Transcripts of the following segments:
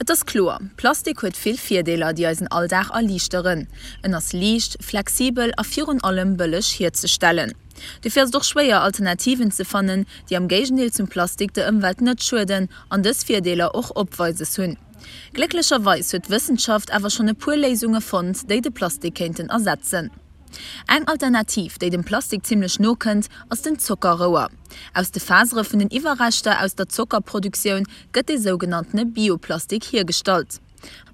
Et ass kloer, Plastik huet vill Virdeeler, déi eisen Alldag erliichteren. En ass liicht, flexibel a virun allem bëlleg hierzestellen. Dofir ass et och schwéier, Alternativen ze fannen, déi am Géigendeel zum Plastik der Ëmwelt net schueden an dës Virdeeler och opweises hunn. Glécklecherweis huet d'Wëssenschaft awer schonn e puer Léisunge fonnt, déi de Plastik kéinten ersetzen. Eng Alternativ, déi dem Plastik zimmlech no kënnt, ass den Zockerrouer. Aus de Fasere vun den Iwwerreschter aus der Zockerproduktioun gëtt dee sougenanntene Bioplastik hiergestallt.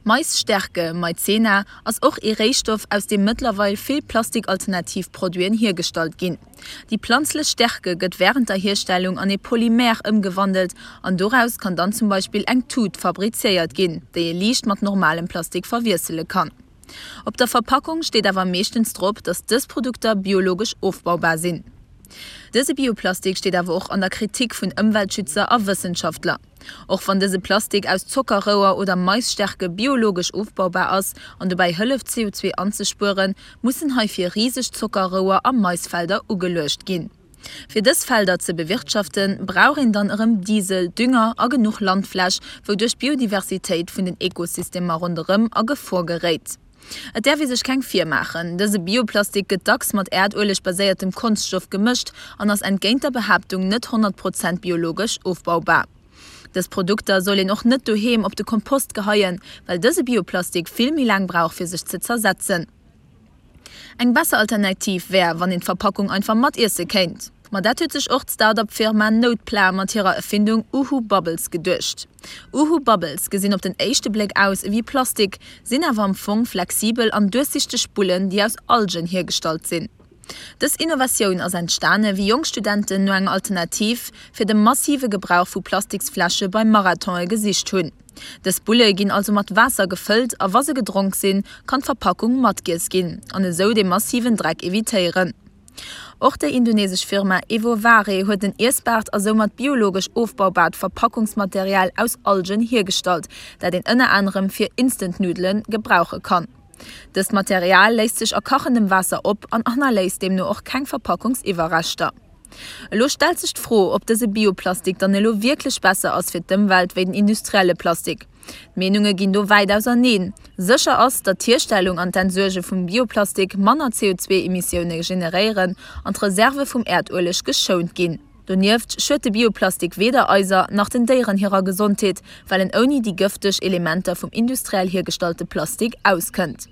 Maisstärke, Maizena, ass och ee Réistoff, aus deem mëttlerweil vill Plastikalternativ Produiten hiergestallt ginn. Déi planzlech Stärke gëtt wärend der Hierstellung an ee Polymer ëmgewandelt an doraus kann dann zum Beispill eng Tut fabriziéiert ginn, déi ee liicht mat normalem Plastik verwiessele kann. Op der Verpackung steet awer meeschtens drop, datt dës Produkter biologesch ofbaubar sinn. Dëse Bioplastik steet awer och an der Kritik vun Ëmweltschützer a Wëssenschaftler. Och wann dëse Plastik aus Zockerrouer oder Maisstärke biologesch ofbaubar ass an dobäi hëlleft CO2 anzespueren, mussen heifir riseg Zockerrouer a Maisfelder ugeluecht ginn. Fir dës Felder ze bewirtschaften, brauch een dann erëm Diesel, Dünger a genuch Landfläch, wouduerch d'Biodiversitéit vun den Ekosystemer ronderëm a Gefor geréit. Et däerf ee sech keng virmaachen, dëse Bioplastik gëtt dacks mat Äerdueleg-baséiertem Konschtstoff gemëscht an ass entgéint der Behaaptung net 100 Prozent biologesch ofbaubar. Dës Produkter soll een och net doheem op de Kompost geheien, well dëse Bioplastik vill méi laang brauch fir sech ze zersetzen. Eng besser Alternativ wär, wann een d'Verpackung einfach matiesse kéint. Ma dat huet sech och d'Start-up-Firma Notepla mat hirer Erfindung Uhu Bubbles geduecht. Uhu Bubbles gesinn op den éischte Bléck aus ewéi Plastik, sinn awer am Fong flexibel an duerchsichteg Bullen, déi aus Algen hiergestallt sinn. Dës Innovatioun ass entstane wéi jonk Studenten no enger Alternativ fir de massive Gebrauch vu Plastiksfläsche bei Marathone gesicht hunn. Dës Bulle ginn also mat Waasser gefëllt a wa se gedronk sinn, kann d'Verpackung matgiess ginn an esou dee massiven Dreck evitéieren. Och déi indonesesch Firma Evovare huet en iessbaart a soumat biologesch ofbaubaart Verpackungsmaterial aus Algen hiergestallt, dat een ënner anerem fir Instant-Nuddele gebrauche kann. Dëst Material léist sech a kachendem Waasser op an hannerléisst deemno och keng Verpackungsiwwerreschter. Elo stellt sech d'Fro, ob dëse Bioplastik dann elo wierklech besser ass fir d'Ëmwelt wéi den industrielle Plastik. D'Meenunge ginn do wäit auserneen. Sécher ass, datt d'Hierstellung an d'Entsuerge vum Bioplastik manner CO2-Emissioune generéieren an d'Reserve vum Äerdueleg geschount ginn. Donieft schued de Bioplastik weder eiser nach den Déieren hirer Gesondheet, well en ouni déi gëfteg Elementer vum industriell hiergestallte Plastik auskënnt.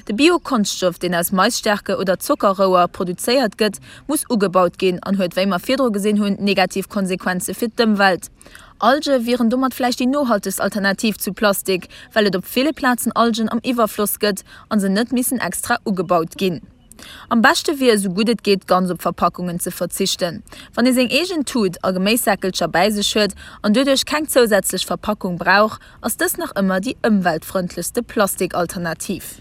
De Bio-Konschtstoff, deen aus Maisstärke oder Zockerrouer produzéiert gëtt, muss ugebaut ginn an huet, wéi mer virdru gesinn hunn, negativ Konsequenze fir d'Ëmwelt. Alge wieren domat vläicht déi nohaltegst Alternativ zu Plastik, well et op ville Plazen Algen am Iwwerfloss gëtt a se net missen extra ugebaut ginn. Am beschte wier, esou gutt et geet, ganz op Verpackungen ze verzichten. Wann ee seng eegen Tut a Geméissäckelcher bäi sech huet an doduerch keng zousätzlech Verpackung brauch, ass dës nach ëmmer déi ëmweltfrëndlechste Plastikalternativ.